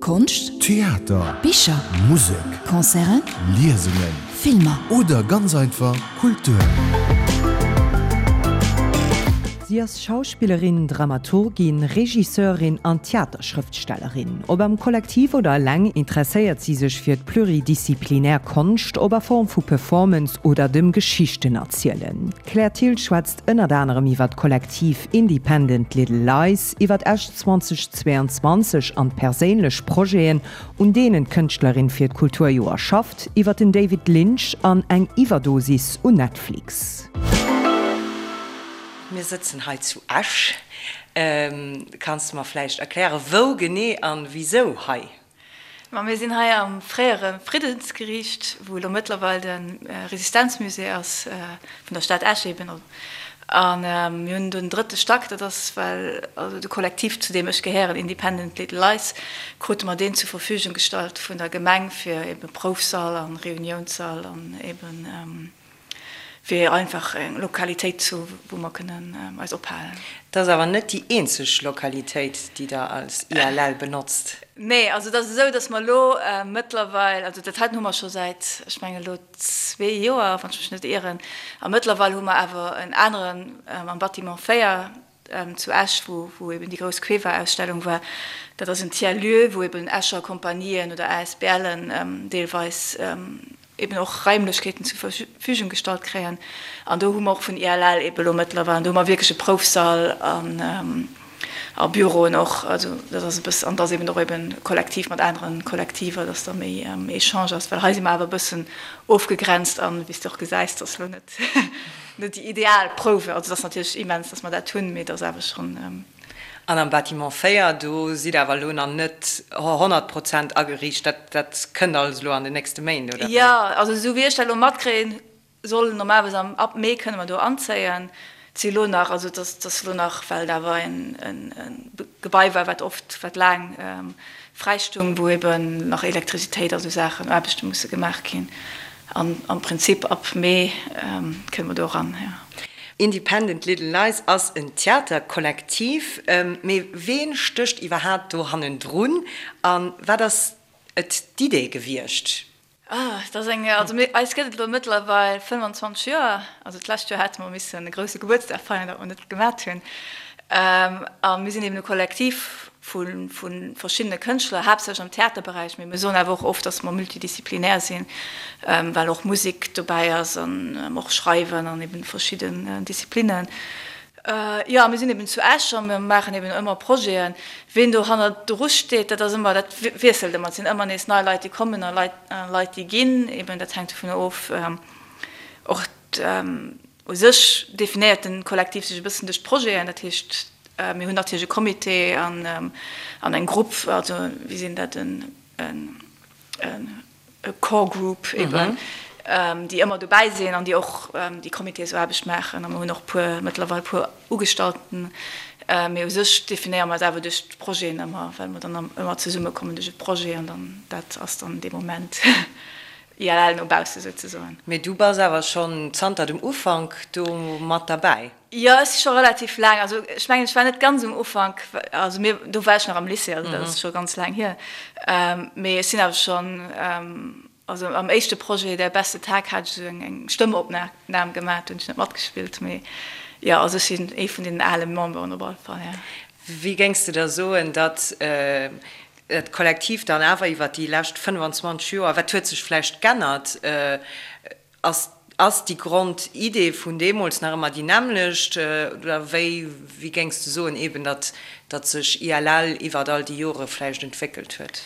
Konscht, Theater, Bicher, Musek, Concerten, Liesungen, Filmer. Oder ganz einfach Kultur. Si ass Schauspillerin, Dramaturgin, Regisseurin an Theaterschrëftstellerin. Ob am Kollektiv oder eleng, interesséiert si sech fir d'pluridisziplinär Konscht, ob a Form vu Performance oder dem Geschichtenerzielen. D'Claire Thill schwätzt ënnert anerem iwwer d'Kollektiv Independent Little Lies, iwwer Esch 2022 an d'perséinlech Projeten, un deenen d'Kënschtlerin fir d'Kulturjoer schafft, iwwer den David Lynch an eng Iwwerdosis un Netflix. Mir sëtzen hei zu Esch. Kanns de mer vläicht erklären, wou genee an wisou hei? Ma mir sinn hei am fréiere Friddensgeriicht, wou elo mëttlerweil de Resistenzmusée ass, vun der Stad Esch eben. A mir hunn den drëtte Stack, dat ass well also de Kollektiv, zu deem ech gehéieren, Independent Little Lies, krute mer deen zur Verfügung gestallt vun der Gemeng fir eben Proufsall a Reuniounssall an eben fir einfach eng Lokalitéit ze hu wou mer kënnen eis ophalen. Dat ass awer net déi eenzeg Lokalitéit, déi Der als ILL benotzt. Nee, also et ass esou, datt mer elo mëttlerweil, also dat heiten hu mer scho säit, ech mengen elo zwee Joer, wann ech mech net ieren, a mëttlerweil hu mer awer en aneren am Bâtiment 4, zu Esch, wou eben déi grouss Cueva-Ausstellung war, dat ass en Tiers-lieu, wou eben Escher Kompanien oder ASBLen deelweis eben och Raimlechkeeten zur Verfügung gestallt kréien. An do hu mer och vun ILL eben elo mëttlerweil, an do hu mer wierklech e Proufsall an a Büroen och. Also dat ass e bëssen, an et ass eben och eben kollektiv mat anere Kollektiver, dass da méi Echange ass, well hei si mer awer e bëssen ofgegrenzt an, wéi s de och gesäis, dass elo net Net déi ideal Prouwe, also et ass natierlech immens, datt mer dat hunn, mee et ass awer schonn. An am Bâtiment 4, do sidd Der awer elo nach net 100 Prozent ageriicht, dat dat kënnt alles elo an den nächste Méint, oder wéi? Jo, also esou wéi ech dat elo matkréien, soll normalerweis am, ab Mee kënne mer do anzéien. Et si elo nach, also et ass, et ass elo nach, well et awer en Gebai war, wat oft, wat laang fräi stung, wou eben nach Elektrizitéit a sou Saachen, Aarbechte musse gemaach ginn. An am Prinzip ab Mee kënne mer do eran, jo. Independent Little Lies ass en Theaterkollektiv, mee ween stécht iwwerhaapt do hannendrun a wat ass et d'Idee gewiescht? Ah, dat ass eng, also mir, eis gëtt et elo mëttlerweil 25 Joer. Also d'lescht Joer hate mer missen e grousse Gebuertsdag feieren, dat mer net gemat hunn. A mir sinn eben e Kollektiv vu verschiddene Kënschtler, haaptsächlech am Theaterberäich, mee mir soen awer och oft, datt mer multidisziplinär sinn, well och Musek dobäi ass an och Schreiwen an eben verschidden Disziplinnen. Jo, mir sinn eben zu Esch a mir maachen eben ëmmer Projeten. Ween do hannerdru steet, dat ass ëmmer, dat wiesselt ëmmer. Et sinn ëmmer nees nei Leit, déi kommen a Leit, Leit, déi ginn. Eben dat hänkt dovunner of. Och u sech definéiert de Kollektiv sech e bëssen duerch d'Projeten. Dat heescht, mir hunn natierlech e Comité an an eng Grupp, also wéi sinn dat, en, en, e Core Group eben, déi ëmmer dobäi sinn an déi och déi Comitésaarbecht maachen. A mer hunn och puer, mëttlerweil puer Ugestallten. Mee u sech definéiere mer eis awer duerch d'Projeten ëmmer, well mer dann ëmmer zesummekommen duerch e Projet an dann dat ass dann dee Moment ILL no bausse souzesoen. Mee du bass awer schonn zanter dem Ufank do mat derbäi? Jo, ech si scho relativ laang, also ech mengen, ech war net ganz um Ufank, also mir, do war ech nach am Lycée, also dat ass scho ganz laang hier, mee ech sinn awer schonn, also am éischte Projet Der beste Tag hat ech esou eng Stëmmopnam gemaach, do hunn ech net matgespillt, mee jo, also ech sinn ee vun deenen ale Memberen op alle Fall, jo. Wéi géings de da soen, datt dat Kollektiv dann awer iwwer déi lescht 25 Joer, wat huet sech vläicht g'ännert, Ass ass déi Grondidee vun deemools nach ëmmer déi nämmlecht oder wéi wéi géings de soen eben, datt datt sech ILL iwwert all déi Jore vläicht entwéckelt huet?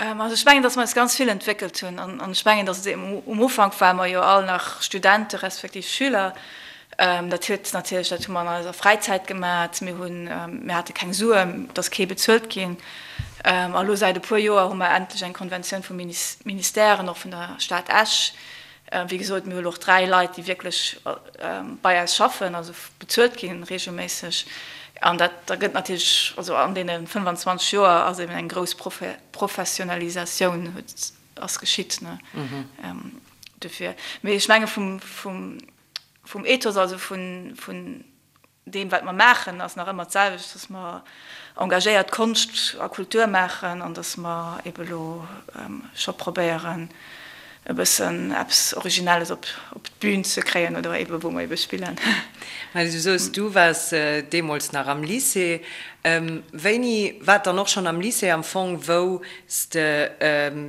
Also ech mengen, datt mer eis ganz vill entwéckelt hunn an an ech mengen, datt et um Ufank ware mer jo all nach Studente respektiv Schüler. Dat huet natierlech, dat hu mer an eiser Fräizäit gemat, mir hunn, mir hate keng Suen, et ass kee bezuelt ginn. A lo säit e puer Joer hu mer endlech eng Konventioun vum Ministère an och vun der Stad Esch. Wéi gesot, mir hu lo och 3 Leit, déi wierklech bei eis schaffen, also bezuelt ginn reegelméisseg. An dat da gëtt natierlech, also an deene 25 Joer ass eben eng grouss Professionalisatioun huet, ass geschitt, ne, dofir. Mee ech menge vum, vum, vum Ethos, also vun, vun. deem wat mer maachen ass nach ëmmer d'selwecht, dass mer engagéiert Konscht a Kultur maachen an dass mer ebe lo scho probéieren e bëssen eppes Originelles op d'Bün ze kréien oder ebe wou mer ebe spillen. Mä du soos, du waars deemools nach am Lycée. Wéini war et dann och schonn am Lycée am Fong, wou s de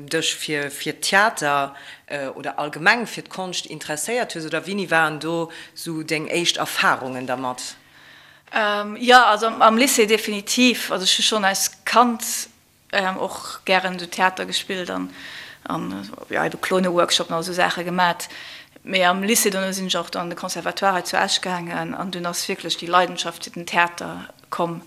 dech fir fir Theater oder allgemeng fir d'Konscht interesséiert hues oder wéini waren do sou deng éischt Erfarungen dermat? Jo, also am Lycée definitiv. Also ech hu schonn als Kand och gären esou Theater gespillt an jo ebe Klone-Workshopen an esou Saache gemat. Mee am Lycée dono sinn ech och an de Conservatoire hei zu Esch gaangen an dunn ass wierklech déi Leidenschaft fir den Theater komm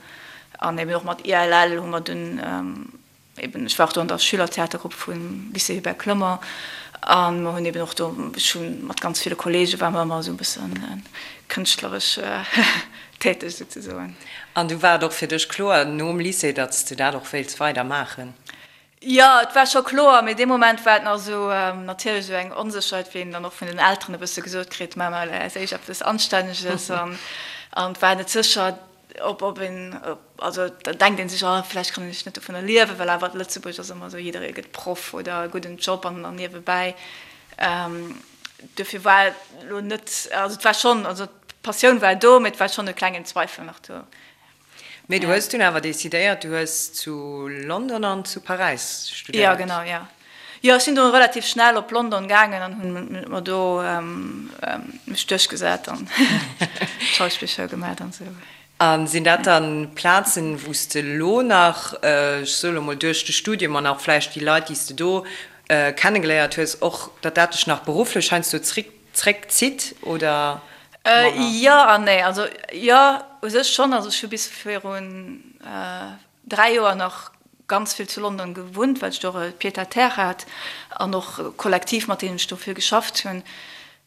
an eben och mat ILL hu mer dunn Eben, ech war och do an der Schülertheatergrupp vum Lycée Hubert Clement a mer hunn eben och do, ech hu mat ganz ville Kollege ware mer ëmmer esou e bësse kënschtleresch täteg souzesoen. An du war et och fir dech kloer nom Lycée, datt s de dat och wéilts weider maachen? Jo, et war scho kloer, mee dee Moment war et nach esou natierlech esou eng Onsécherheet, wéi een dann och vun den Elteren e bësse gesot kritt, Maach mol als éischt eppes Anstänneges an et war net sécher, Ob, ob een, also da denkt een sech, oh vläicht kann ech net dovunner liewen, well awer Lëtzebuerg ass ëmmer esou, jidderee gëtt Proff oder e gudden Job an an niewebäi. Dofir war et elo net, also et war schonn, also d'Passioun war do, mee et war schonn e klengen Zweifel nach do. Mee du hues dunn awer decidéiert, du hues zu London an zu Paräis studéiert. Jo, genau, jo. Jo, ech sinn do relativ schnell op London gaangen an hunn mer do mech duerchgesat an d'Schauspillschoul gemat an esou. A sinn dat dann Plazen, wou s de elo nach, ech soe lo mol duerch de Studium an och vläicht déi Leit, déi s de do kennegeléiert hues, och datt dat dech nach berufflech heiansdo zréckzitt oder manner? Jo an nee. Also jo, u sech schonn. Also ech hu bis virun 3 Joer nach ganz vill zu London gewunnt, well ech do och e Pied-à-terre hat an och e Kollektiv, mat deem ech do vill geschafft hunn.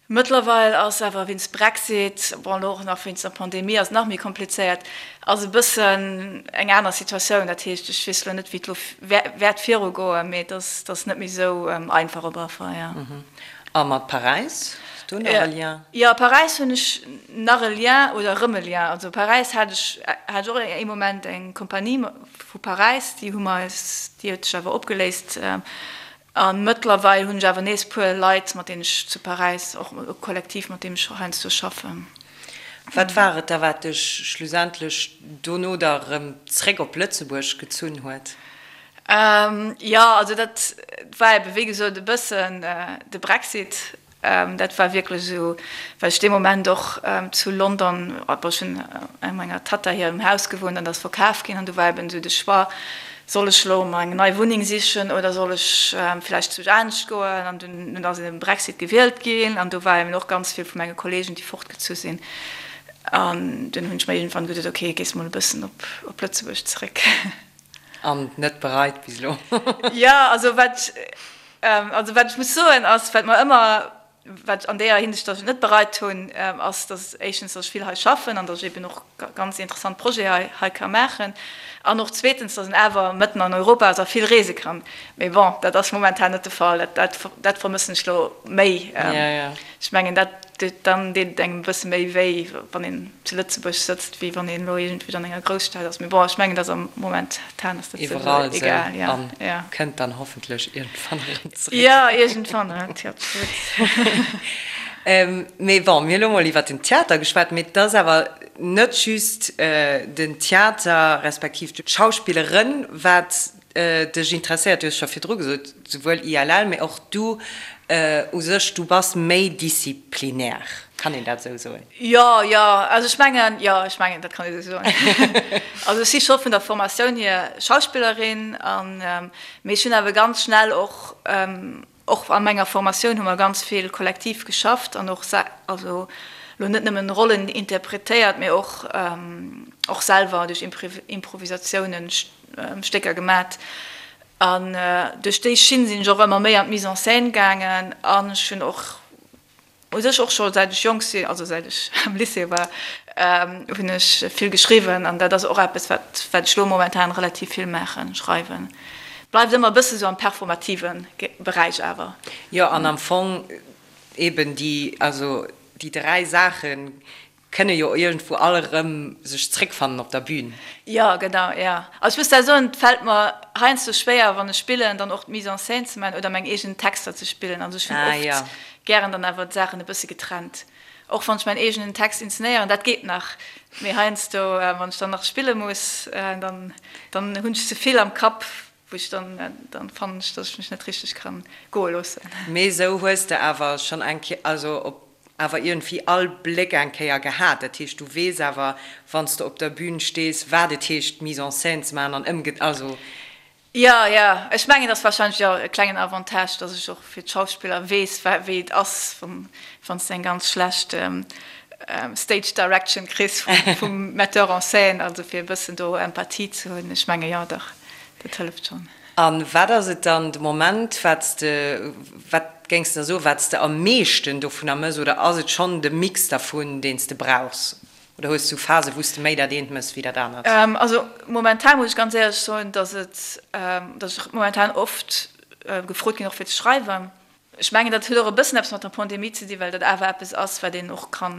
Mëttlerweil ass awer wéinst Brexit, bon elo och nach wéinst der Pandemie ass et nach méi komplizéiert, ass e bëssen eng aner Situatioun. Dat heescht, ech weess elo net, wéi et elo wäert virugoen, mee et ass, et ass net méi esou einfach op alle Fall, jo. A mat Paräis? Hues du nach e Lien? Jo, Paräis hunn ech nach e Lien oder erëm e Lien. Also Paräis hat ech hat ech och ee Moment eng Kompanie vu Paräis, déi hu mer eis, déi huet sech awer opgeléist. A mëttlerweil hunn ech awer nees puer Leit, mat deenen ech zu Paräis och e Kollektiv, mat deem ech heiansdo schaffen. Wat war et da, wat dech schlussendlech dono da erëm zréck op Lëtzebuerg gezunn huet? Jo, also dat war ebe wéi gesot e bëssen de Brexit. Dat war wierklech esou, well ech dee Moment och zu London, bon ech hunn a menger Tatta hirem Haus gewunnt an dat ass verkaf ginn an du war eben esou de Choix, soll ech elo mer eng nei Wunneng sichen oder soll ech vläicht zu anescht goen? An dunn ass eben Brexit gewielt ginn an do war eben och ganz vill vu menge Kollegen, déi fortgezu sinn. An dunn hunn ech mer iergendwann geduet, ok, gees mol e bëssen op Lëtzebuerg zeréck. An net bereit bis elo. Jo, also wat, also wat ech muss soen ass, wat mer ëmmer, wat an deeër Hinsicht, datt ech et net bereit hunn, ass, datt éischtens, datt ech vill hei schaffen an datt ech eben och ganz interessant Projete hei, hei ka maachen an och zweetens, datt een awer mëtten an Europa ass a vill reese kann. Mee bon, dat ass momentan net de Fall. Dat, dat, dat vermëssen ech elo méi. Ech mengen, dat, dann deet et engem e bësse méi wéi, wann een zu Lëtzebuerg sëtzt, wéi wann een elo iergendwéi an enger Grousstad ass. Mee bon, ech mengen, dass am momentan ass dat souwisou egal. Ja, ja. Kënnt dann hoffentlech iergendwann erëm zréck. Jo, iergendwann, absolut. Mee bon, mir hu lo mol iwwert den Theater geschwat, mee et ass awer net just den Theater respektiv d'Schauspillerin, wat dech interesséiert, du hues scho virdru gesot, souwuel ILL, mee och du u sech, du bass méi disziplinär, kann een dat esou soen? Jo, jo, also ech mengen, jo, ech mengen, dat kann ee esou soen. Also ech si scho vun der Formatioun hier Schauspillerin an, mee ech hunn awer ganz schnell och, Och a menger Formatioun hu mer ganz vill kollektiv geschafft an och also lo net nëmmen Rollen interpretéiert, mee och och selwer duerch Improvisatiounen Stécker gemat. An duerch déi Schinn sinn ech och ëmmer méi an d'Mise en scène gaangen an ech hunn och U sech och scho säit ech jonk sinn, also säit ech am Lycée war, hunn ech vill geschriwwen an dat ass och eppes, wat wat ech elo momentan relativ vill maachen, schreiwen. Bleift ëmmer e bësse sou am performative Beräich awer. Jo, an am Fong eben déi, also déi 3 Saachen. Kënne jo iergendwou all erëm sech zréckfannen op der Bühn. Jo, genau, jo. Also ech muss da soen, et fält mer heiansdo schwéier, wann ech spillen, dann och d'Mise en scène ze maachen oder meng eegen Texter ze spillen. Also ech hunn oft gären dann awer d'Saachen e bësse getrennt. Och wann ech mäin eegenen Text inzenéieren, dat geet nach, mee heiansdo, wann ech dann nach spille muss, dann dann hunn ech ze vill am Kapp, wou ech dann, dann fannen ech, dass ech mech net richteg kann goe loossen. Mee esou hues de awer schonn eng Kéier, also op awer iergendwéi all Bléck eng Kéier gehat. Dat heescht, du weess awer, wann s de op der Bühn stees, wat et heescht, Mise en scène ze maachen an ëmge-, also. Jo, jo, ech mengen, et ass warscheinlech jo e klengen Avantage, dass ech och fir d'Schauspiller weess, wéi et ass, wann s de eng ganz schlecht Stage Direction kriss vum Metteur en scène, also fir e bëssen do Empathie ze hunn. Ech menge jo, dach, dat hëlleft schonn. A wat ass et dann de Moment, wat s de, wat géings de da soen, wat s de am meeschten dovunner mëss? Oder ass et schonn de Mix dervun, deen s de brauchs? Oder hues du Phasen, wou s de méi dat eent mëss wéi dat anert? Also momentan muss ech ganz éierlech soen, dass et, dass ech momentan oft gefrot ginn och fir ze schreiwen. Ech mengen, dat huet och e bëssen eppes mat der Pandemie ze dinn, well dat awer eppes ass, wat een och ka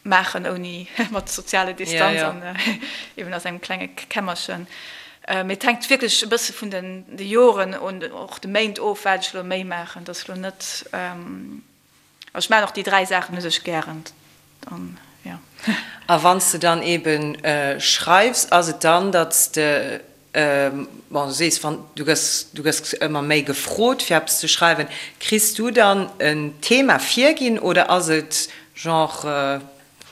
maachen ouni mat soziale Distanz an eben a sengem klenge Kämmerchen. Mee et hänkt wierklech e bësse vun den de Joren un och de Méint of, wat ech elo méi maachen. Dat ass elo net, also ech maachen och déi 3 Saachen u sech gären. Dann, jo. A wann s de dann eben schreifs, ass et dann, datt s de, bon, du sees, wann, du gëss, du gëss ëmmer méi gefrot fir eppes ze schreiwen, kriss du dann en Thema virginn oder ass et genre,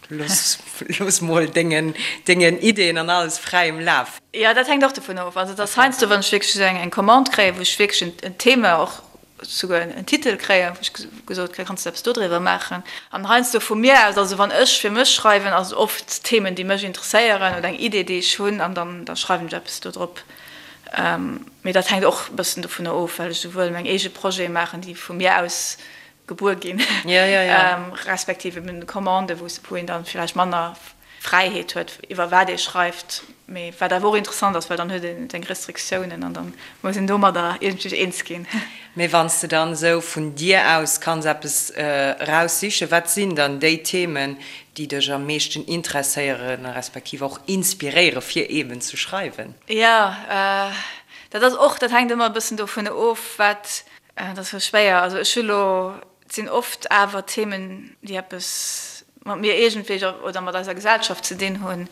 looss, looss mol dengen, dengen Ideen an alles fräiem Laf? Jo, dat hänkt och dovun of. Also et ass heiansdo, wann ech wierklech esou eng, eng Commande kréien, wou ech wierklech en Thema och souguer en Titel kréien, wou ech gesot kréien, kanns de eppes dodriwwer maachen. An heiansdo vu mir aus, also wann ech fir mech schreiwen, ass et oft Themen, déi mech interesséieren oder eng Idee, déi ech hunn, an dann da schreiwen ech eppes dodrop. Mee dat hänkt och e bëssen dovunner of, well ech souwuel meng eege Projete maachen, déi vu mir aus gebuer ginn, respektiv eben Commanden, wou een dann villäicht manner Fräiheet huet, iwwer wat ee schreift, mee wat awer och interessant ass, well dann huet een seng Restriktiounen an dann muss een domadder iergendwéi eens ginn. Mee wann s de dann esou vun dir aus kanns eppes eraussichen, wat sinn dann déi Themen, déi dech am meeschten interesséieren, respektiv och inspiréiere fir eben ze schreiwen? Jo, dat ass och, dat hänkt ëmmer e bëssen dovun of, wat, dat ass sou schwéier, also ech hu lo Et sinn oft awer Themen, déi eppes mat mir iergendwéi oder mat eiser Gesellschaft ze dinn hunn.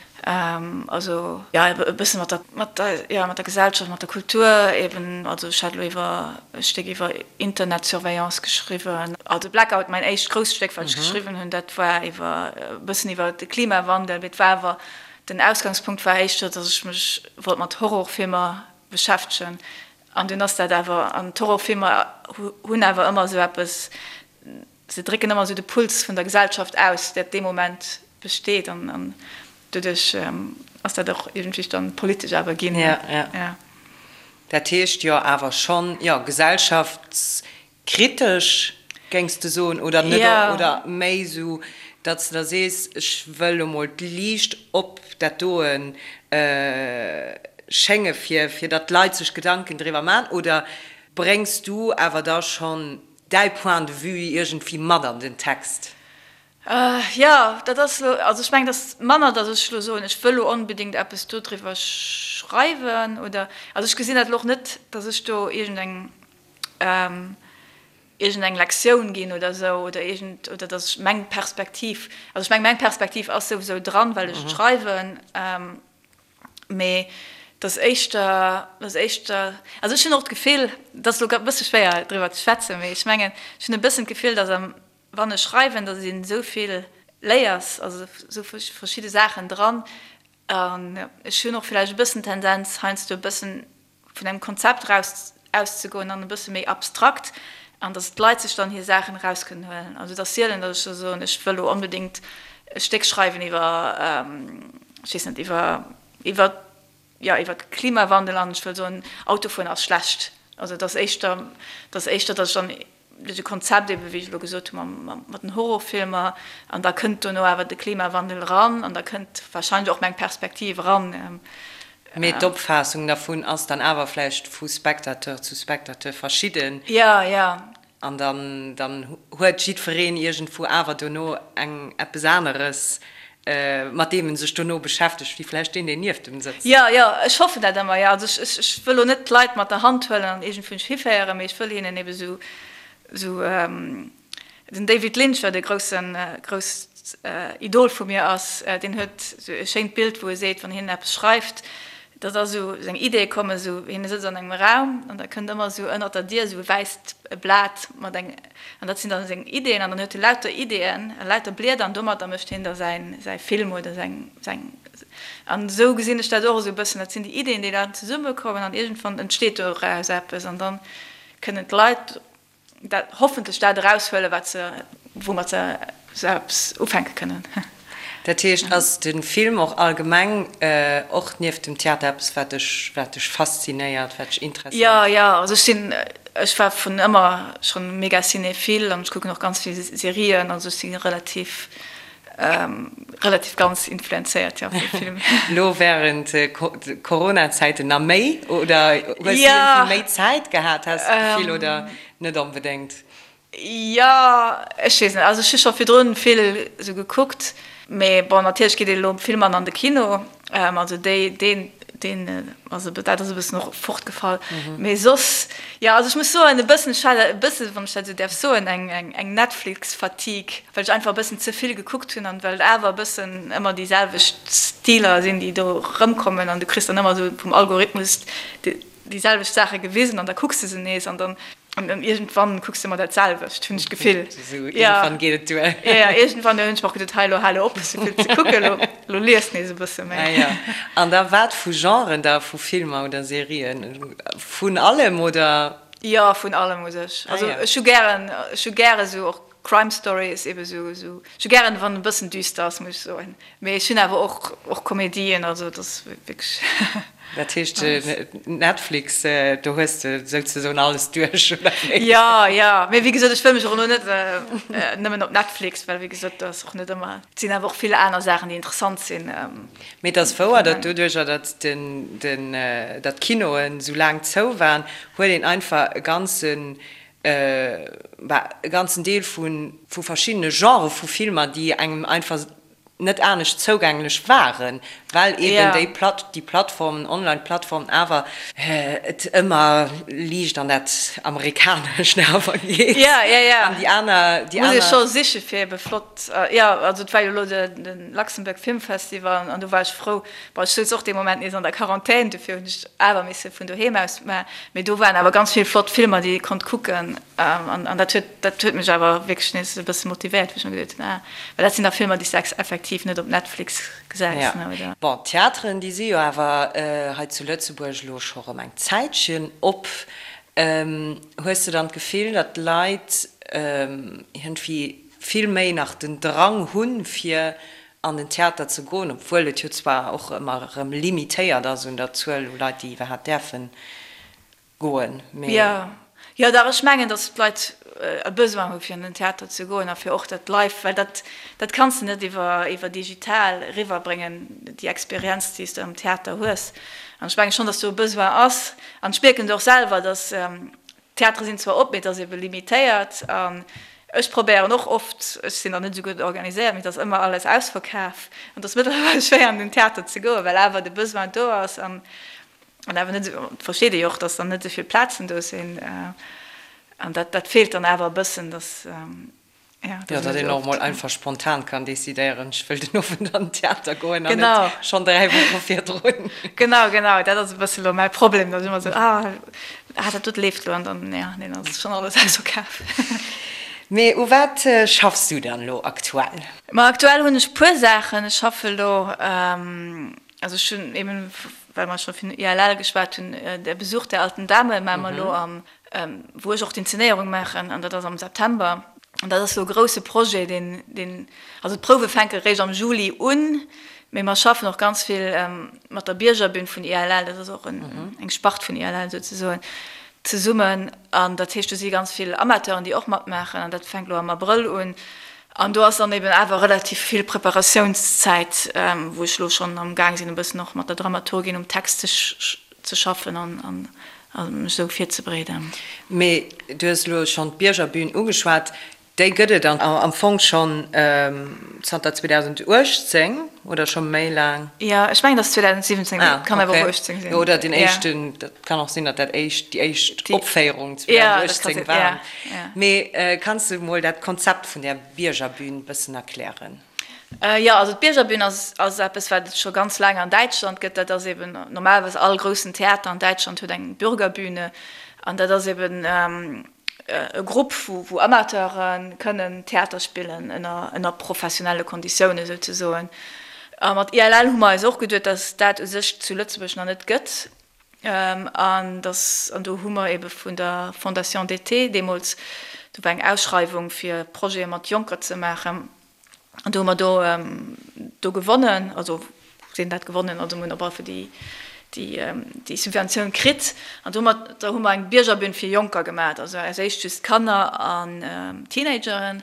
Also, jo, e bësse mat der, mat der, jo, mat der Gesellschaft, mat der Kultur eben. Also ech hat elo iwwer e Stéck iwwer Internetsurveillance geschriwwen. Also Blackout, mäin éischt grousst Stéck, wat ech geschriwwen hunn, dat war iwwer, e bëssen iwwer de Klimawandel. Mee et war awer, den Ausgangspunkt war éischter, datt ech mech wollt mat Horrorfilmer beschäftegen. An dunn ass dat awer, an d'Horrorfilmer hunn awer ëmmer esou eppes, se drécken ëmmer esou de Puls vun der Gesellschaft aus, dat dee Moment besteet. An doduerch ass dat och iergendwéi dann politesch awer ginn. Ja, ja. Dat heescht jo awer schonn, jo, gesellschafts Kritesch, géings de soen, oder net, oder méi esou, datt s de da sees, ech wëll elo mol d'Liicht op dat doen schénge fir fir datt d'Leit sech Gedanken driwwer maachen, oder bréngs du awer da schonn däi Point de vue iergendwéi mat an den Text? Jo, dat ass elo, also ech mengen, et ass manner, datt ech elo soen, ech wëll elo onbedéngt eppes dodriwwer schreiwen, oder, also ech gesinn dat elo och net, datt ech do iergendeng iergendeng Lektioun ginn oder esou, oder iergend, oder datt ech meng Perspektiv, also ech meng, meng Perspektiv ass souwisou dran, well ech et schreiwen, mee et ass éischter, et ass éischter, also ech hunn och d'Gefill, et ass elo grad e bësse schwéier driwwer ze schwätzen, mee ech mengen, ech hunn e bëssen d'Gefill, datt am, wann ech schreiwen, datt een esou vill léiers, also esou verschidde Saachen dran, an ech hunn och villäicht e bëssen d'Tendenz heiansdo e bëssen vun engem Konzept eraus auszegoen an e bësse méi abstrakt an datt d'Leit sech dann hir Saachen eraus kënnen huelen. Also et ass sielen, datt ech da soen, ech wëll elo onbedéngt e Stéck schreiwen iwwer, ech weess net, iwwer, iwwer, jo, iwwer de Klimawandel an ech wëll soen, Autofueren ass schlecht. Also et ass éischter, et ass éischter, datt ech dann Duerch e Konzept eben, wéi ech elo gesot hu mat den Horrorfilmer, an da kënnt dono awer de Klimawandel eran an da kënnt wahrscheinlech och meng Perspektiv eran. Mee d'Opfaassung dervun ass dann awer vläicht vu Spectateur zu Spectateur verschidden. Jo, jo. An dann, dann huet jiddwereen iergendwou awer dono eng, eppes aneres, mat deem en sech dono beschäftegt, wéi vläicht deen, deen nieft em sëtzt. Jo, jo, ech hoffen dat ëmmer, jo. Also ech, ech, ech wëll lo net d'Leit mat der Hand huelen an iergendwou hiféieren, mee ech wëll hinnen ebe sou, sou, den David Lynch, wat e groussen, grousst Idol vu mir ass, deen huet sou e schéint Bild, wou e seet, wann hien eppes schreift, Dat ass esou, seng Ideeë kommen esou, hien sëtzt an engem Raum an da kënnt ëmmer esou ënnert der Dier esou e wäisst Blat mat eng, an dat sinn dann seng Ideeën an dann huet e lauter Ideeën a lauter Blieder an domatter mécht hien da säin, säi Film oder säin, säin, an esou gesinn ech dat och esou e bëssen, dat sinn déi Ideeën, déi dann zesummekommen an iergendwann entsteet doraus eppes an dann kënnen d'Leit dat hoffentlech dat eraushuelen, wat se, woumat se se eppes ufänke kënnen. Dat heescht, ass de Film och allgemeng, och nieft dem Theater, eppes, wat dech, wat dech faszinéiert, wat dech interesséiert? Jo, jo, also ech sinn, ech war vun ëmmer schonn mega cinéphile an ech kucken och ganz vill Serien, also ech si relativ Relativ ganz influenzéiert, jo, vum Film. Lo während Corona-Zäiten na méi, oder hues du iergendwéi méi Zäit gehat, has de d'Gefill, oder net onbedéngt? Jo, ech weess net. Also ech hu scho virdrun vill esou gekuckt, mee bon, natierlech geet een elo vill manner an de Kino. Also déi, deen, deen, also dat ass e bëssen och fortgefall. Mee soss, jo, also ech muss soen, e bëssen, ech hat e bëssen, wann ech dat esou däerf soen, eng, eng, eng Netflix-Fatigue, well ech einfach e bëssen ze vill gekuckt hunn an well et awer e bëssen ëmmer déi selwecht Stiler sinn, déi do erëmkommen an du kriss dann ëmmer esou vum Algorithmus déi, déi selwecht Saache gewisen an da kucks de se nees an dann an dann iergendwann kucks de ëmmer dat selwecht, hunn ech d'Gefill. Esou iergendwann geet et duer. Jo, jo, iergendwann hunn ech mer och geduet, hei elo hal op esou vill ze kucken, elo, elo lies nees e bësse méi. Ah jo. An da wat vu Genren da, vu Filmer oder Serien? Vun allem oder? Jo, vun allem u sech. Also ech hu gären, ech hu gäre sou och Crime Stories, ebe sou, sou, ech hu gären wann e bëssen düster ass, muss ech soen. Mee ech hunn awer och, och Komedien, also et ass wierklech. Dat heescht Netflix, do hues de souzesoen alles duerch, oder wéi? Jo, jo, mee wéi gesot, ech wëll mech och elo net nëmmen op Netflix, well wéi gesot, do ass och net ëmmer, et sinn awer och vill aner Saachen, déi interessant sinn. Mee et ass wouer, datt doduercher, datt den, den, datt d'Kinoen esou laang zou waren, huet een einfach e ganzen, bah, e ganzen Deel vu, vu verschiddene Genrë vu Filmer, déi engem einfach net anescht zougänglech waren, well eben déi Platt, déi Plattformen, Online-Plattformen awer et ëmmer liicht an dat Amerikanescht awer geet. Ja, ja, ja. An déi aner, déi Muss ee aner. scho siche fir ebe flott, jo, also et war jo elo de, de Luxembourg Film Festival an do war ech frou, bon ech souz och dee Moment nees an der Quarantän, dofir hunn ech awer misse vun doheem aus, mä, mee do waren awer ganz vill flott Filmer, déi ee konnt kucken an, an dat huet, Dat huet mech awer wierklech nees e bësse motivéiert, wou ech mer geduet hunn, ah, well dat sinn da Filmer, déi s de effektiv net op Netflix gesäis, ne, oder? Bon, d'Theateren, déi si jo awer hei zu Lëtzebuerg elo scho rëm eng Zäitchen op. Hues de dann d'Gefill, datt d'Leit iergendwéi vill méi nach den Drang hunn, fir an den Theater ze goen, obwuel et jo zwar och ëmmer erëm limitéiert ass un der Zuel u Leit, déi iwwerhaapt däerfen goen, mee. Jo, jo dach, ech mengen, datt d'Leit e Besoin hu fir an den Theater ze goen a fir och dat live, well dat, dat kanns de net iwwer, iwwer digital eriwwerbréngen, déi Experienz, déi s de am Theater hues. An ech menge schonn, datt do e Besoin ass. An ech mierken et och selwer, datt, d'Theatere sinn zwar op, mee et ass ebe limitéiert. An ech probéieren och oft, ech sinn dann net esou gutt organiséiert, mee et ass ëmmer alles ausverkaf an et ass mëttlerweil schwéier an den Theater ze goen, well awer de Besoin do ass. An An awer net esou, versteet ee jo och, datt dann net esou vill Plazen do sinn. An dat, dat feelt dann awer e bëssen, datt, jo, datt een net een och emol einfach spontan kann decidéieren, ech wëll den Owend an den Theater goen an net schonn 3 Woche virdrun. Genau, genau, dat ass e bësse lo mäi Problem, datt ech ëmmer esou, ah, ah, dat dote leeft lo an dann, jo, nee, dann ass schonn alles ausverkaf. Mee u wat schaffs du dann elo aktuell? Ma aktuell hunn ech puer Saachen. Ech schaffe lo, Also ech hunn eben, well mer scho vun ILL geschwat hunn, Der Besuch der alten Dame maache mer elo am, wou ech och d'Inzenéierung maachen, an dat ass am September. An dat ass elo e grouse Projet, deen, deen, also d'Prouwe fänke eréischt am Juli un, mee mer schaffen och ganz vill mat der Biergerbün vun ILL, dat ass och eng Spart vun ILL souzesoen, zesummen. An dat heescht, do si ganz vill Amateuren, déi och matmaachen, an dat fänkt elo am Abrëll un. An do ass dann eben awer relativ vill Preparatiounszäit, wou ech elo schonn am Gaang sinn, e bëssen och mat der Dramaturgin um Text ze schaffen an. A mech esou virzebereeden. Mee du hues elo schonn d'Biergerbühn ugeschwat. Déi gëtt et am Fong schonn zanter 2018 oder scho méi laang? Jo, ech mengen, et ass 2017, mee et kann awer och 18 sinn. Oder den éischten, dat kann och sinn, datt dat éischt, déi éischt Opféierung 2018 war. Mee kanns de mol dat Konzept vun där Biergerbühn bëssen erklären? Jo, also d'Biergerbühn ass ass eppes, wat et scho ganz laang an Däitschland gëtt. Dat ass eben normalerweis all groussen Theater an Däitschland huet eng Bürgerbühne an dat ass eben e Grupp, wou wou Amateure kënnen Theater spillen ënner ënner professionelle Konditiounen souzesoen. A mat ILL hu mer eis och geduet, datt dat u sech zu Lëtzebuerg nach net gëtt an datt an do hu mer ebe vun der Fondation d'été deemools, do war eng Ausschreiwung fir Projete mat Jonker ze maachen, An do hu mer do do gewonnen, also sinn dat gewonnen, also mir hunn op alle Fall déi déi déi Subventioun kritt. An domat da hu mer eng Biergerbün fir Jonker gemaat, also als éischt just Kanner an Teenageren.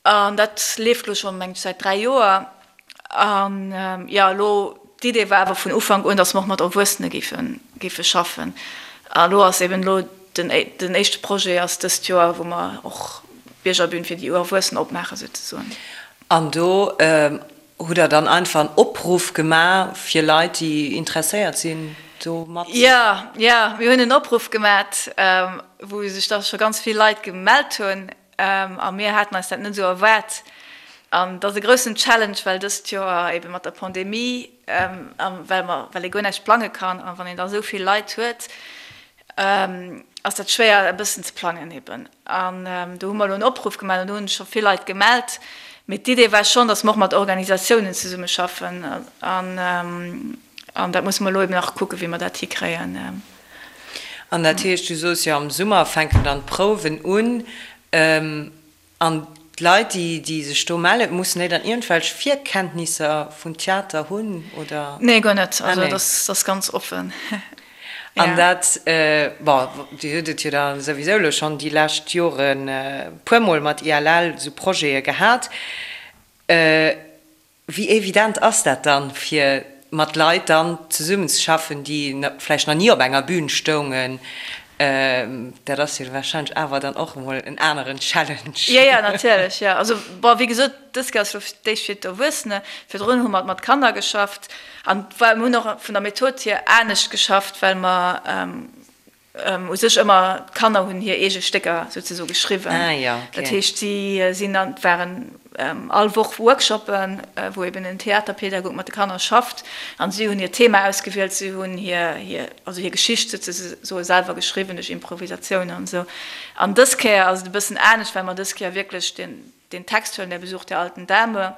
An dat leeft elo schonn, meng ech, säit 3 Joer. An jo, elo d'Idee war awer vun Ufank un, datt mer och mat Erwuessene géife géife schaffen. A elo ass eben elo den den éischte Projet ass dëst Joer, wou mer och d'Biergerbün fir déi Erwuessen opmaachen souzesoen. An do hutt Der dann einfach en Opruff gemaach fir Leit, déi interesséiert sinn, do mat. Jo, jo, mir hunn en Opruff gemaat, wou sech da scho ganz vill Leit gemellt hunn. A mir haten eis dat net esou erwaart. An et ass e groussen Challenge, well dëst Joer ebe mat der Pandemie a well mer, well ee guer näischt plange kann a wann een da esou vill Leit huet, ass dat schwéier e bëssen ze plangen eben. An do hu mer elo en Opruff gemaach an do hunn sech scho vill Leit gemellt. Mee d'Idee war schonn, datt mer och mat Organisatiounen zesummeschaffen an an dat musse mer elo eben nach kucken, wéi mer dat hikréien. An dat heescht, du soos jo, am Summer fänken dann d'Prouwen un. An d'Leit, déi, déi sech do mellen, mussen déi dann iergendwelch Virkenntnisser vun Theater hunn, oder? Nee, guer net. Also dat ass ganz offen. An dat, bon, Dir hutt et jo da souwisou elo schonn déi lescht Joren e puermol mat ILL esou Projete gehat. Wéi evident ass dat dann, fir mat Leit dann zesummenzeschaffen, déi vläicht nach ni op enger Bühn stoungen? Dat ass jo warscheinlech awer dann och emol en aneren Challenge. Jo, jo, natierlech, jo. Also, bon, wéi gesot, dës Kéier ass elo fir d'éischt fir d'Erwuessene. Virdrun hu mer mat Kanner geschafft an mir hunn och vun der Method hier anescht geschafft, well mer U sech ëmmer, d'Kanner hunn hir eege Stécker souzesoe geschriwwen. Dat heescht, si sinn an, et waren all Woch Workshoppen, wou eben en Theaterpedagog mat de Kanner schafft an si hunn hiert Thema ausgewielt, si hunn hir, hir, also hir Geschicht souzesoe selwer geschriwwen duerch Improvisatioun an esou. An dës Kéier ass et e bëssen anescht, well mer dës Kéier wierklech den, den Text huelen, Der Besuch der alten Dame,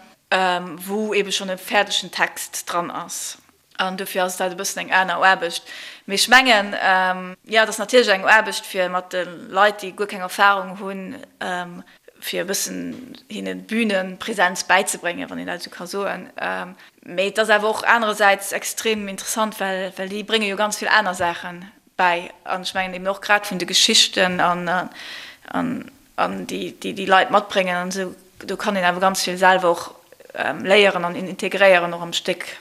wou ebe schonn e fäerdegen Text dran ass. An dofir ass dat e bëssen eng aner Aarbecht. Mee ech mengen, jo, et ass natierlech eng Aarbecht, fir mat de Leit, déi guer keng Erfahrung hunn, fir e bëssen hinne Bühnenpräsenz bäizebréngen, wann een dat esou ka soen. Mee et ass awer och anerersäits extrem interessant, well déi brénge jo ganz vill aner Saache bäi. An ech mengen eben och grad vun de Geschichten an déi déi Leit matbréngen an esou, do kann een awer ganz vill selwer och léieren an integréieren och am Stéck.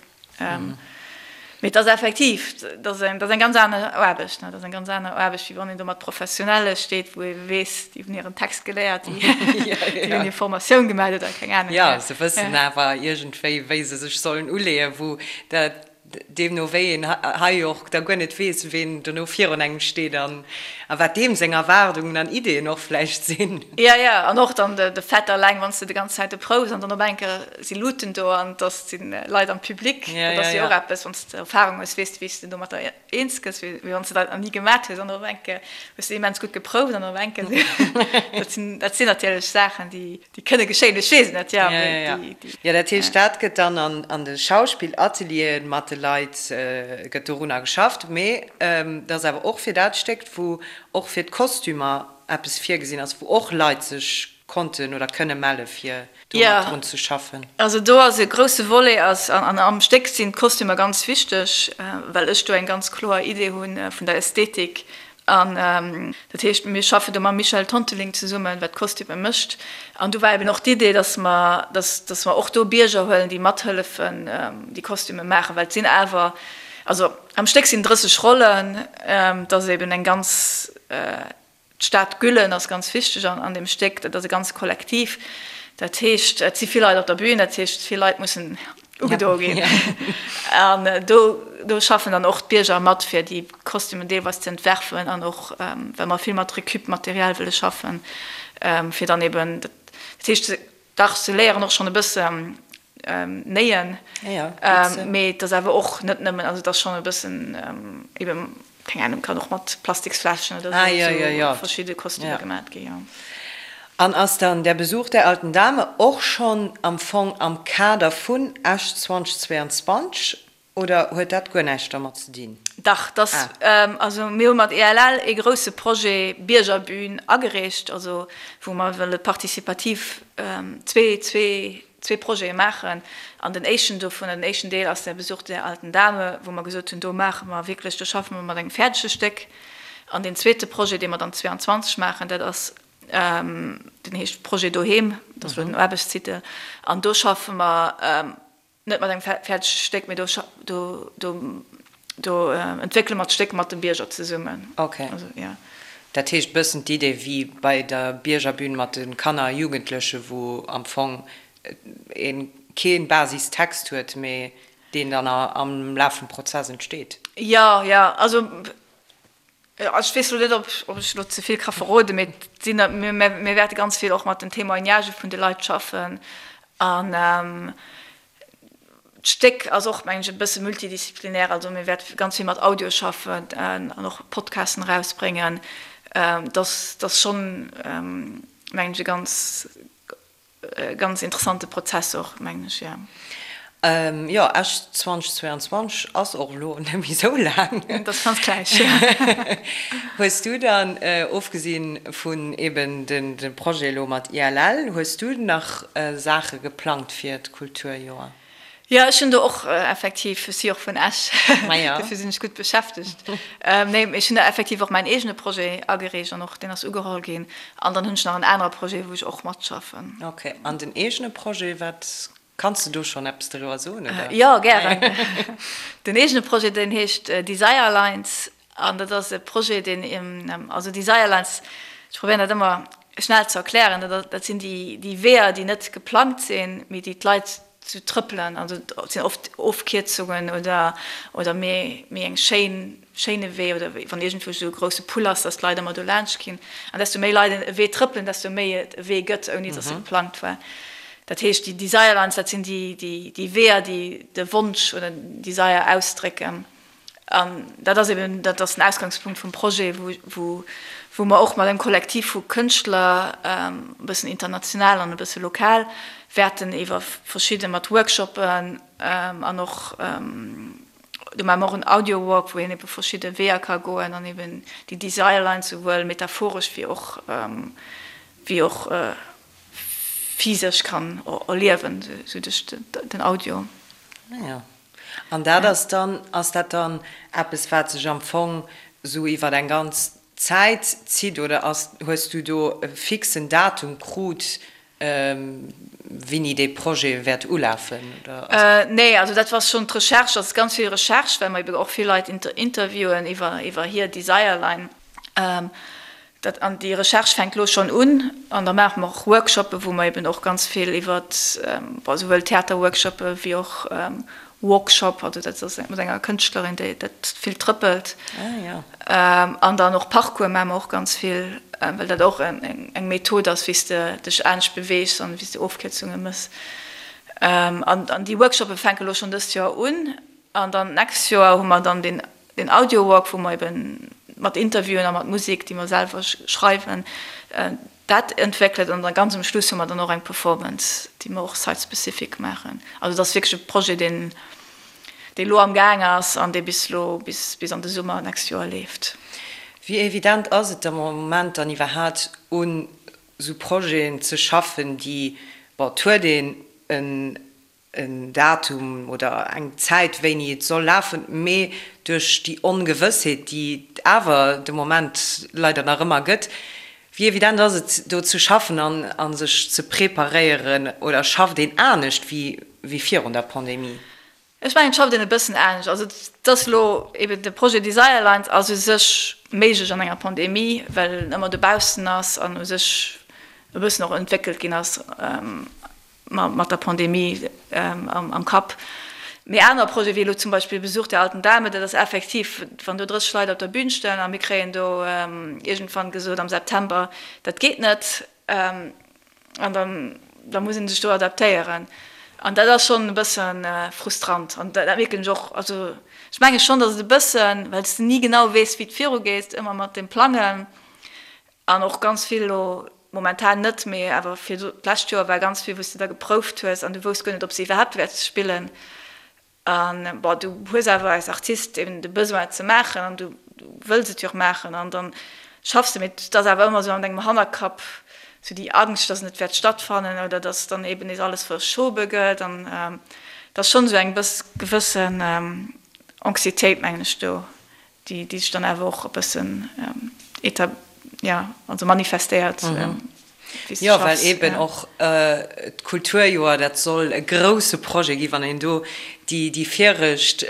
Mee et ass effektiv, dat ass eng, dat ass eng ganz aner Aarbecht, ne? Dat ass eng ganz aner Aarbecht, wéi wann een do mat Professionelle steet, wou ee weess, déi hunn hiren Text geléiert, déi hunn hir Formatioun gemaach oder keng Ahnung. Jo, se wëssen awer iergendwéi, wéi se sech sollen uleeën, wou dat deemno wéi een hei och da guer net weess, ween dono virun engem steet an a wat deem seng Erwaardungen an Ideeën och vläicht sinn. Jo, jo, an och dann de Fait alleng, wann s de de ganz Zäit do prouws an dann op eng Kéier si Luuten do an et si Leit am Public, dat ass jo och eppes, wann s de Erfarung hues, weess de, wéi s de domatter eens gëss, wéi wann s de dat nach ni gemat hues an op eng Kéier hues de immens gutt geprouft an op eng Kéier, dat sinn, dat sinn natierlech Saachen, déi, déi kënne geschéien, ech weess et net, jo, mee déi, déi. Jo, dat heescht, dat gëtt dann an de Schauspillatelieren mat de Leit gëtt dorunner geschafft, mee et ass awer och fir dat Stéck, wou och fir d'Kostümer eppes virgesinn ass, wou och Leit sech konnten oder kënne melle fir do mat drun ze schaffen. Also do ass e grousse Volet ass, an am Stéck sinn d'Kostümer ganz wichteg, well ech do eng ganz kloer Idee hu vun der Ästhetik. An dat heescht, mir schaffen do mam Michel Tonteling zesummen, wat d'Kostüme mécht. An do war eben och d'Idee, dass mer, dass, dass mer och do Bierger huelen, déi mathëllefen, déi Kostüme maachen, well et sinn awer. Also am Stéck sinn 30 Rollen, et ass eben eng ganz, d'Stad Güllen ass ganz wichteg an deem Stéck, dat ass e ganzt Kollektiv. Dat heescht, et si vill Leit op der Bühn, dat heescht, vill Leit mussen ugedo ginn. An do, do schaffen dann och d'Bierger mat, fir déi Kostümen deelweis ze entwerfen an och, well mer vill mat Récup-Material wëlle schaffen, fir dann eben, dat heescht, Dach, se léieren och schonn e bëssen néien, mee et ass awer och net nëmmen, also et ass schonn e bëssen eben, keng Ahnung, kann och mat Plastiksfläschen oder esou verschidde Kostümer gemat gi, jo. An ass dann Der Besuch der alten Dame och schonn am Fong am Kader vun Esch 2022 Oder huet dat guer näischt dermat ze dinn? Dach, dass, also mir hu mat ELL ee grouse Projet Biergerbühn agereecht, also wou mer wëlle participativ zwee, zwee, zwee Projete maachen. An den éischten dovun, den éischten Deel ass der Besuch der alten Dame, wou mer gesot hunn, do maache mer wierklech, do schaffe mer mat engem fäerdege Stéck. An deen zweete Projet, dee mer dann 22 maachen, dat ass, deen heescht Projet Doheem, dat ass elo den Aarbechtstitel, an do schaffe mer, Net mat engem fäerdege Stéck, mee do, do, do, do entwéckele mer d'Stéck mat de Bierger zesummen. Ok. Also, ja. Dat heescht bëssen d'Idee wéi bei der Biergerbühn mat de Kanner a Jugendleche wou am Fong ee kee Basistext huet, mee deen dann am Laf vum Prozess entsteet. Jo, jo. Also Ech weess elo net, ob ech elo ze vill ka verroden, mee et sinn, mir wäerte ganz vill och mat den Témoignagë vun de Leit schaffen. An d'Stéck ass och, mengen ech, e bësse multidisziplinär. Also mir wäerte ganz vill mat Audio schaffen an och Podcasten erausbréngen. Dat ass schonn, mengen ech, e ganz Ganz interessante Prozess och, mengen ech, jo. Jo, Esch 2022 ass och elo net méi esou laang. Dat ass ganz gläich, jo. Hues du dann, ofgesinn vun eben de Projet elo mat ILL, hues du nach Saache geplangt fir d'Kulturjoer? Jo, ech hunn do och effektiv, ech si och vun Esch, dofir sinn ech gutt beschäftegt. Nee, mee ech hunn da effektiv och mäin eegene Projet agereecht an och deen ass ugeholl ginn. An dann hunn ech nach en anere Projet, wou ech och matschaffen. Ok, an den eegene Projet, wat, kanns de do schonn eppes doriwwer soen, oder? Jo, gären. Den eegene Projet, deen heescht Desire Lines an dat ass e Projet, deen, also Desire Lines, ech probéieren dat ëmmer schnell ze erklären, dat sinn déi Weeër, déi net geplangt sinn, mee déi d'Leit Zu trëppelen, also et sinn oft Ofkierzungen oder oder méi méi eng schéin schéine Wee oder wann iergendwou esou e grousse Pull ass, datt d'Leit ëmmer do laanscht ginn. An desto méi Leit e Wee trëppelen, desto méi et e Wee gëtt, ouni datt e geplangt war. Dat heescht, déi Desire Lines, dat sinn déi déi déi Weeër, déi de Wonsch oder den Desire ausdrécken. An dat ass eben, dat ass den Ausgangspunkt vum Projet, wou, wou mer och mat engem Kollektiv vu Kënschtler, e bëssen international an e bësse lokal, wäerten iwwer verschidde mat Workshoppen an och, do maache mer och en Audio-Walk, wou een ebe verschidde Weeër ka goen an eben déi Desire Lines souwuel metaphoresch wéi och, wéi och physesch kann erliewen, sou duerch den Audio. An dat ass dann, ass dat dann eppes, wat sech am Fong esou iwwer eng ganz Zäit zitt oder ass, hues du do e fixen Datum krut, wéini dee Projet wäert ulafen oder ass? Nee, also dat war schonn d'Recherche, dat ass ganz vill Recherche, well mer ebe och vill Leit interviewen iwwer iwwer hir Desire Line. Dat, an déi Recherche fänkt elo schonn un. An da maache mer och Workshoppe wou mer eben och ganz vill iwwer, bon, souwuel Theaterworkshoppe wéi och Walkshop, also dat ass mat enger Kënschtlerin, déi dat vill trëppelt. An dann och Parcours maache mer och ganz vill, well dat och eng Method ass, wéi s de dech anescht beweegs an wéi s de Ofkierzunge méchs. An déi Workshoppe fänke elo schonn dëst Joer un. An dann d'nächst Joer hu mer dann deen Den Audio-Walk, wou mer eben mat Interviewen a mat Musek, déi mer selwer schreiwen, dat entwéckelt. An da ganz um Schluss hu mer dann och eng Performance, déi mer och site-specific maachen. Also et ass wierklech e Projet, deen, dee lo am Gaang ass an dee bis lo, bis, bis an de Summer d'nächst Joer leeft. Wéi evident ass et am Moment dann iwwerhaapt, un esou Projeten ze schaffen, déi, bon, et huet een en en Datum oder eng Zäit, wéini et soll lafen, mee duerch déi Ongewëssheet, déi et awer de Moment leider nach ëmmer gëtt, wéi evident ass et, do ze schaffen an a sech ze preparéieren oder schafft een anescht wéi virun der Pandemie? Ech mengen, et schafft een e bëssen anescht. Also et ass elo eben de Projet Desire Lines ass u sech méiglech an enger Pandemie, well en ëmmer dobaussen ass an u sech e bëssen och entwéckelt ginn ass mat der Pandemie am Kapp. Mee aner Projete wéi elo zum Beispill Besuch der alten Dame, dat ass effektiv, wann do 30 Leit op der Bün stoen a mir kréien do iergendwann gesot am September, dat geet net, An dann, da muss ee sech do adaptéieren. An dat ass schonn e bësse frustrant. An dat mierken ech och. Also ech menge schonn, datt et e bëssen, well s de ni genau weess, wéi et virugeet, ëmmer mat dem Plangen an och ganz vill elo momentan net, mee awer fir d'lescht Joer war ganz vill, wou s de da geprouft hues an du wousst guer net, ob s de iwwerhaapt wäerts spillen. An, bon, du hues awer als Artist eben de Besoin et ze maachen an du wëlls et jo och maachen an dann schaffs de, mee et ass awer ëmmer esou an dengem Hannerkapp esou déi Angscht, dass et net wäert stattfannen oder dass dann eben nees alles verschobe gëtt an et ass schonn esou eng bëss gewëssen Anxiétéit, mengen ech, do, déi déi sech dann awer och e bëssen éta ja also manifestéiert wéi s de Jo, well schaffs. eben Ja. och d'Kulturjoer, dat soll e grouse Projet ginn. Wann een do déi déi viregt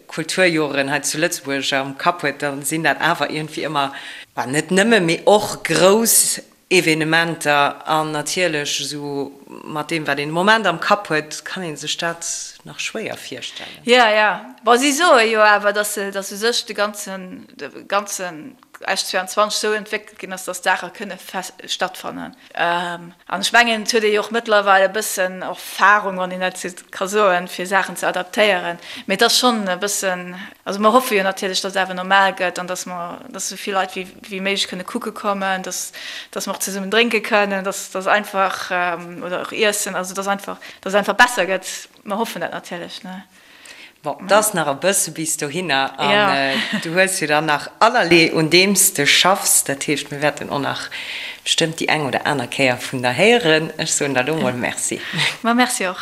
Kulturjoren hei zu Lëtzebuerg am Kapp huet, da sinn dat awer iergendwéi ëmmer, bah, net nëmme, mee och grouss Evenementer an natierlech esou mat deem wat een de Moment am Kapp huet, kann ee sech dat nach schwéier virstellen. Jo, jo. Bon, si soe jo awer, datt se, datt u sech de ganzen, de ganzen Esch 22 esou entwéckelt ginn ass, datt Saache kënne stattfannen. An ech mengen, et huet ee jo och mëttlerweil e bëssen Erfahrung, wann een dat esou ka soen, fir Saachen ze adaptéieren. Mee et ass schonn e bëssen, also mer hoffe jo natierlech, datt et awer normal gëtt an datt mer, datt esou vill Leit wéi, wéi méiglech kënne kucke kommen, dass, dass mer och zesummen drénke kënnen, dass, dass einfach, oder och iessen, also dass einfach, dass et einfach besser gëtt. Mer hoffen dat natierlech, ne. Bon, et ass nach e bësse bis dohinner an du hues jo dann nach allerlee un deem s de schaffs. Dat heescht, mir wäerten och nach bestëmmt déi eng oder aner Kéier vun der héieren. Ech soen der elo mol Merci. Ma merci och.